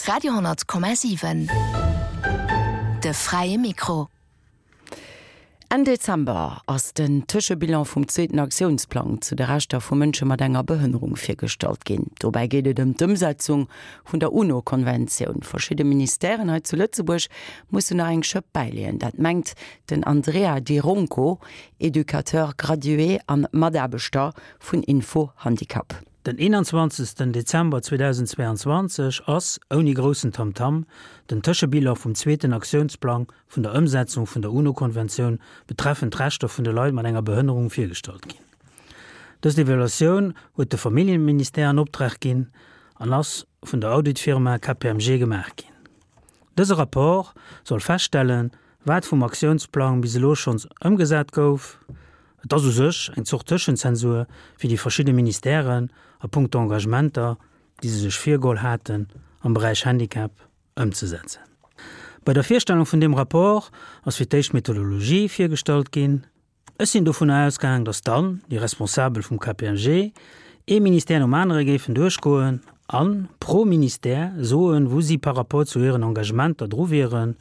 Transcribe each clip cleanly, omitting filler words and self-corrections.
Radio 10,7 De fräie Mikro. Enn Dezember ass den Tëschebilan vum zweeten Aktiounsplang zu de Rechter vu Mënsche mat enger Behënnerung virgestallt ginn. Dobäi geet et ëm d'Ëmsetzung vun der UNO-Konventioun. Verschidde Ministèren hei zu Lëtzebuerg mussen nach eng Schëpp bäileeën. Dat mengt den Andrea Di Ronco, Educateur gradué an Mataarbechter vun Info Handicap. Den 21 Dezember 2022 ass, ouni groussen Tamtam, den Tëschebilan vum zweeten Aktiounsplang vun der Ëmsetzung vun der UNO-Konventioun betreffend d'Rechter vun de Leit mat enger Behënnerung virgestallt ginn. Dës Evaluatioun huet de Familljeministère an Optrag ginn an ass vun der Auditfirma KPMG gemaach ginn. Dëse Rapport soll feststellen, wat vum Aktiounsplang bis elo schonns ëmgesat gouf, Et ass u sech eng Zort Tëschenzensur fir déi verschidde Ministèren a punkto Engagementer, déi se sech virgeholl haten am Beräich Handicap, ëmzesetzen. Bei der Virstellung vun deem Rapport ass fir d'éischt d'Methodologie virgestallt ginn. Ech sinn dovunner ausgaang, datt dann déi Responsabel vum KPMG ee Ministère nom anere géifen duerchgoen a pro Ministère soen, wou si par rapport zu hiren Engagementer dru wieren,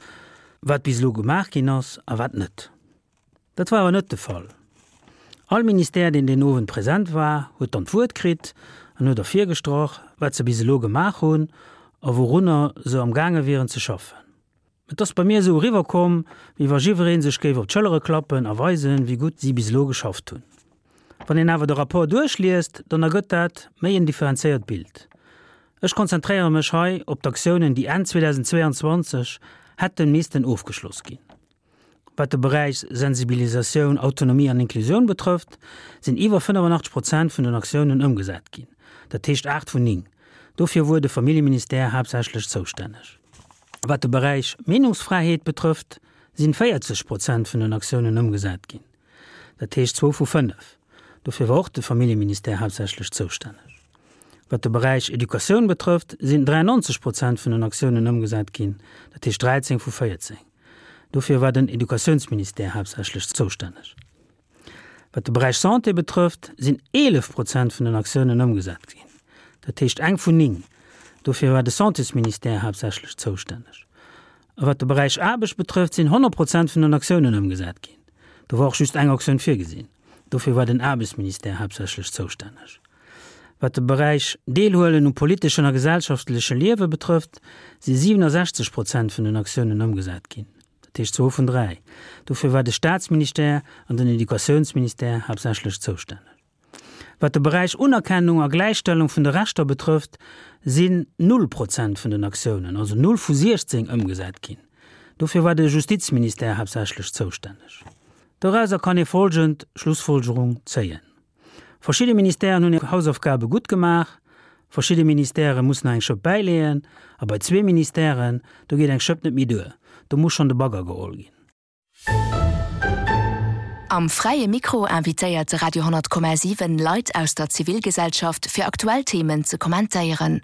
wat bis elo gemaach ginn ass a wat net. Dat war awer net de Fall. All Ministère, deen deen Owend present war, huet dann d'Wuert kritt an huet ervirgestrach, wat se bis elo gemaach hunn a wourunner se am gaange wieren ze schaffen. Et ass bei mir esou eriwwerkomm, wéi wa jiwweree sech géif op d'Schëllere klappen a weisen, wéi gutt si bis elo geschafft hunn. Wann een awer de Rapport duerchliest, dann ergëtt dat méi en differenzéiert Bild. Ech konzentréiere mech hei op d'Aktiounen, déi Enn 2022 hätte missten ofgeschloss ginn. Wat de Beräich Sensibilisatioun, Autonomie an Inklusioun betrëfft, sinn iwwer 85 Prozent vun den Aktiounen ëmgesat ginn, dat heescht 8 vun 9. Dofir wuar de Familljeministère haaptsächlech zoustänneg. Wat de Beräich Meenungsfräiheet betrëfft, sinn 40 Prozent vun den Aktiounen ëmgesat ginn, dat heescht zwou vu 5. Dofir war och de Familljeministère haaptsächlech zoustänneg. Wat de Beräich Educatioun betrëfft, sinn 93 Prozent vun den Aktiounen ëmgesat ginn, dat heescht 13 vu 14. Dofir war den Educatiounsministère haaptsächlech zoustänneg. Wat de Beräich Santé betrëfft, sinn 11 Prozent vun den Aktiounen ëmgesat ginn, dat heescht eng vun 9. Dofir war de Santésministère haaptsächlech zoustänneg. A wat de Beräich Aarbecht betrëfft, sinn 100 Prozent vun den Aktiounen ëmgesat ginn. Do war och just eng Aktioun virgesinn. Dofir war den Aarbechtsministère haaptsächlech zoustänneg. Wat de Beräich Deelhuelen um politeschen a gesellschaftleche Liewe betrëfft, si 67 Prozent vun den Aktiounen ëmgesat ginn, dat heescht zwou vun dräi. Dofir war de Staatsministère an den Educatiounsministère haaptsächlech zoustänneg. Wat de Beräich Unerkennung a Gläichstellung vun de Rechter betrëfft, sinn null Prozent vun den Aktiounen, also null vu 16, ëmgesat ginn. Dofir war de Justizministère haaptsächlech zoustänneg. Dorauser kann ee folgend Schlussfolgerung zéien. Verschidde Ministèren hunn hir Hausaufgabe gutt gemaach, verschidde Ministèrë mussen nach eng Schëpp bäileeën a bei zwee Ministèren, do geet eng Schëpp net méi duer, do muss schonn de Bagger geholl ginn. Am Fräie Mikro invitéiert de Radio 10,7 Leit aus der Zivilgesellschaft fir aktuell Themen ze kommentéieren.